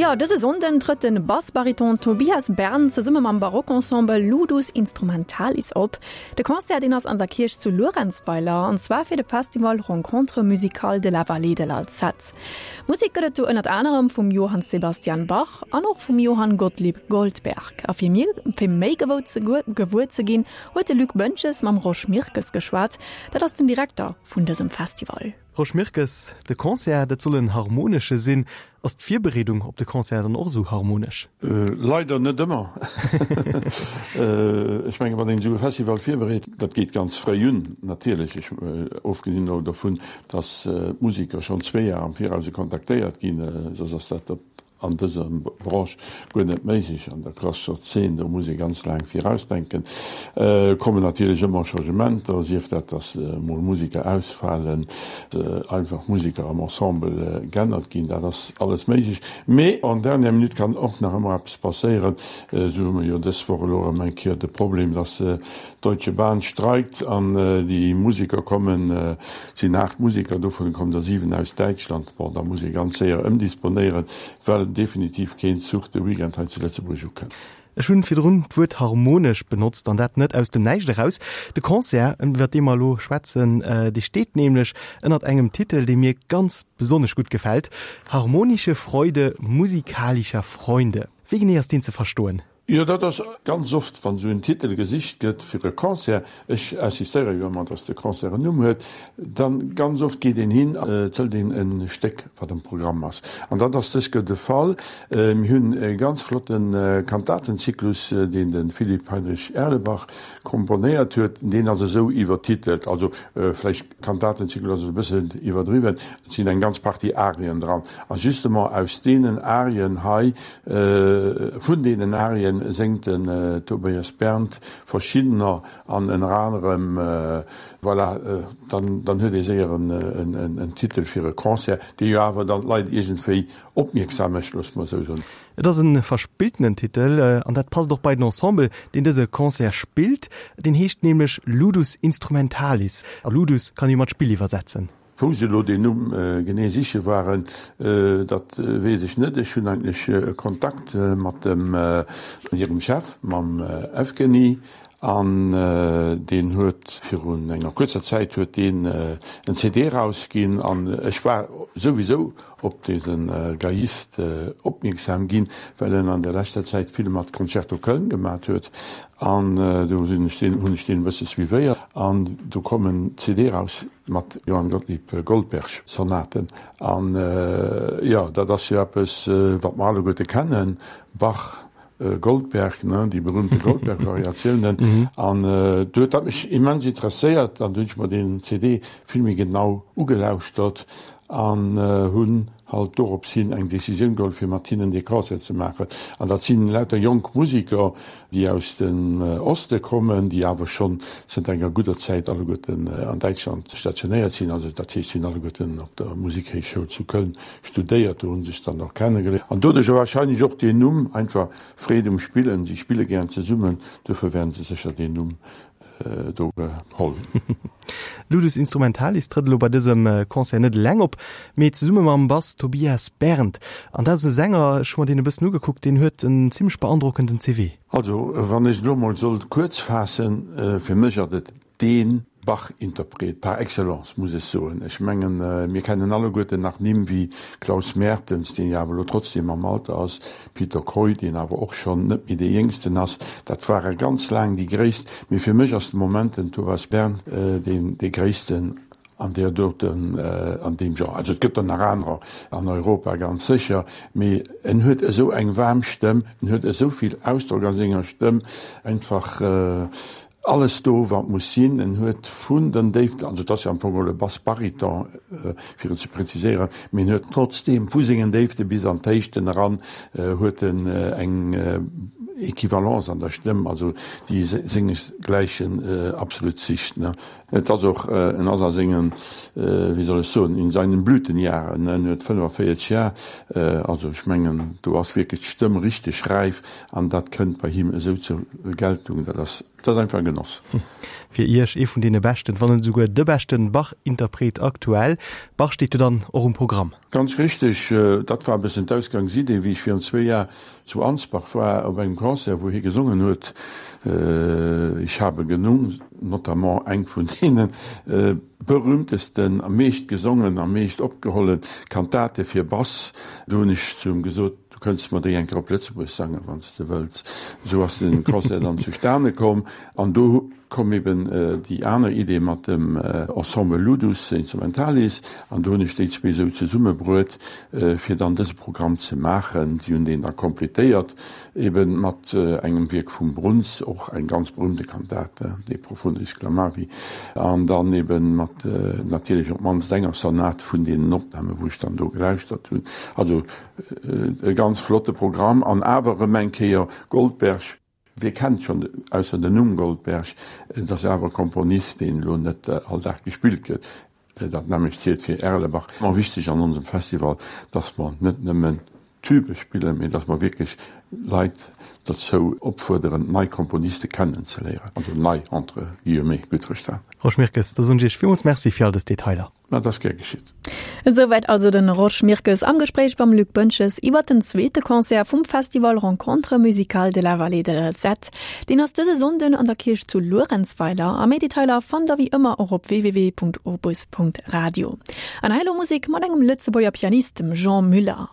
Jo, dëse Sonnden trëtt de Bassbariton Tobias Berndt zesumme mam Barockensemble Ludus Instrumentalis op. De Concert, deen ass an der Kierch zu Luerenzweiler, an zwar fir de Festival Rencontres musicales de la Vallée de l'Alzette. Musek gëtt et do ënnert anerem vum Johann Sebastian Bach an och vum Johann Gottlieb Goldberg. A fir mir fir méi gewou ze gewuer ze ginn, huet de Luc Boentges mam Rosch Mirkes geschwat. Dat ass den Direkter vun dësem Festival. Rosch Mirkes, De Concert, dat soll en harmonesche sinn. Ass d'Virbereedung op de Concert dann och esou harmonesch? Leider net ëmmer. Ech mengen, wann een esou e Festival virbereet, dat geet ganz fréi un natierlech, ech, ofgesinn elo dovun, datt d'Museker schonn zwee Jar am Viraus kontaktéiert ginn, soss ass dat op an dëser Branche guer net méiglech. An der klassescher Zeen, do muss ee ganz laang virausdenken, kommen natierlech ëmmer Changementer, sief dat, datt mol Museker ausfalen, einfach Museker am Ensemble g'ännert ginn, dat ass alles méiglech. Mee en dernière minute kann och nach ëmmer eppes passéieren. Esou hu mer jo dës Woch elo erëm eng Kéier de Problem, datt d'Deutsche Bahn streikt an déi Museker kommen, Et sinn 8 Museker, dovun kommen der 7 aus Däitschland. Bon, da muss ee ganz séier ëmdisponéieren, well definitiv keen Zuch de Weekend hei zu Lëtzebuerg ukënnt. Ech hunn virdrun d'Wuert harmonesch benotzt, an dat net aus dem Näischt eraus. De Concert, iwwer dee mer elo schwätzen, dee steet nämlech ënnert engem Titel, dee mir ganz besonnesch gutt gefält, Harmonische Freude musikalischer Freunde. Wéi genee ass deen ze verstoen? Jo, dat ass ganz oft, wann esou en Titel gesicht gëtt fir e Concert, ech insistéiere jo ëmmer, dass de Concert en Numm huet, dann ganz oft geet een hin an et hëlt een e Stéck, wat am Programm ass. An dat ass dës Kéier de Fall. Mir hunn e ganz flotte Kantatenzyklus, deen de Philipp Heinrich Erlebach komponéiert huet. Deen ass esou iwwertitelt, also vläicht Kantatenzyklus ass e bëssen iwwerdriwwen, et sinn eng ganz Partie Arien dran. A justement aus deenen Arien hei, Vun deenen Arien séngt den Tobias Berndt verschiddener an ënner anerem Voilà, dann dann huet ee séier en Titel fir e Concert, dee jo awer dann d'Leit iergendwéi opmierksam mécht, loosse mer esou soen. Et ass e verspilltenen Titel an dat passt och bei den Ensemble, deen dëse Concert spillt. Deen heescht nämlech Ludus Instrumentalis a Ludus kann ee mat Spill iwwersetzen. Wou se elo deen Numm genee siche waren, dat weess ech net. Ech hunn eigentlech e Kontakt mat dem hirem Chef, mam Evgeny, an deen huet virun enger kuerzer Zäit huet deen en CD erausginn an ech war souwisou op dese Geiist opmierksam ginn, well en an der leschter Zäit vill mat Concerto Köln gemat huet an do sinn ech deen, hunn ech deen e bësse suivéiert an do koum en CD eraus mat Johann Gottlieb Goldberg Sonaten an jo, dat ass jo eppes wat mer alleguerte kennen, Bach, Goldberg, ne, déi berühmte Goldberg-Variatiounen. An do huet dat mech immens interesséiert an du hunn ech mer deen CD vill méi genau ugelauschtert an hunn halt dorops hin eng Decisioun geholl fir mat hinnen dee Concert ze maachen. An dat sinn lauter jonk Musiker, déi aus dem Oste kommen, déi awer schonn zënter enger gudder Zäit alleguerten an Däitschland stationéiert sinn. Also dat heescht, si hunn alleguerten op der Musikhéichschoul zu Köln studéiert, do hu sech dann och kennegeléiert an doduercher wahrscheinlech och deen Numm, einfach Freed um Spillen, si spille gären zesummen, dofir wäerten se sécher deen Numm do geholl hunn. Ludus Instrumentalis trëtt elo bei dësem Concert net eleng op, mee zesumme mam Bass Tobias Berndt. An dat ass e Sänger, ech hu mer deen e bëssen ugekuckt, deen huet en zimmlech beandrockenden CV. Also wann ech et elo mol sollt kuerz faassen, fir mech ass et dee Bach-Interpret par excellence, muss ech soen. Ech mengen, mir kennen alleguerten nach Nimm wéi Klaus Mertens, deen jo awer elo trotzdem am Alter ass, Peter Kooij, deen awer och schonn net méi dee Jéngsten ass. Dat ware ganz laang déi Gréisst. Mee fir mech ass de Moment den Thomas Berndt deen dee Gréissten an där doten, an deem Genre. Also et gëtt der nach anerer an Europa ganz sécher, mee en huet esou eng waarm Stëmm, en huet esou vill Ausdrock a senger Stëmm, einfach Alles do, wat muss sinn. En huet vun den Déiften, also et ass jo am Fong geholl e Bass-Bariton, fir et ze präziséieren, mee en huet trotzdeem vu sengen Déifte bis an d'Héichten eran huet en eng Equivalence an der Stëmm, also déi sengesgläichen absolut sicht. Et ass och, en ass a sengen, wéi soll ech soen, in seinen Blütenjahren, en huet 45 Jar, also ech mengen, do ass wierklech d'Stëmm richteg räif an dat kënnt bei him esou zur Geltung, dat ass. Et ass einfach e Genoss. Fir Iech ee vun deene beschten, wann net esouguer de beschten Bach-Interpret aktuell. Bach steet jo dann och um Programm. Ganz richteg, dat war e bëssen d'Ausgangsidee, wéi ech virun zwee Jar zu Ansbach war op engem Concert, wou hie gesongen huet Ich habe genug, notamment eng vun deene berühmtesten, am meescht gesongen, am meescht opgeholle Kantate fir Bass. Do hunn ech zu him gesot, Du kënns mer déi eng Kéier op Lëtzebuerg sangen, wann s de wëlls. Esou ass de Concert dann zustane komm an do koum eben déi aner Idee mat dem Ensemble Ludus Instrumentalis an do hunn ech déi zwee esou zesummebruet, fir dann dëse Programm ze maachen. Si hunn deen da completéiert eben mat engem Wierk vum Bruns, och eng ganz berühmte Kantate, De profundis clamavi, an dann eben mat natierlech op d'mannst enger Sonat vun deenen Opnamen, wou ech dann do gelauschtert hunn. Also E ganz flotte Programm an awer erëm eng Kéier Goldberg. Wie kennt schonn ausser den Numm Goldberg? Et ass awer e Komponist, deen elo net all Dag gespillt gëtt. Dat nämmlecht zielt fir Erlebach. Mer wichteg an onsem Festival, dass mer net nëmmen Tübe spillen, mee dass mer wierklech Leit dozou opfuerderen, nei Komponiste kennenzeléieren. Also nei entre guillemets, gutt verstan. Rosch Mirkes, da soen ech Iech villmools Merci fir all dës Detailer. Dat ass gär geschitt. Esouwäit also den Rosch Mirkes am Gespréich mam Luc Boentges iwwer den zweete Concert vum Festival Rencontres musicales de la Vallée de l'Alzette. Deen ass dëse Sonnden an der Kierch zu Luerenzweiler a méi Detailer fannt der wéi ëmmer och op www.opus.radio. An hei elo Musek mat engem Lëtzebuerger Pianist, dem Jean Muller.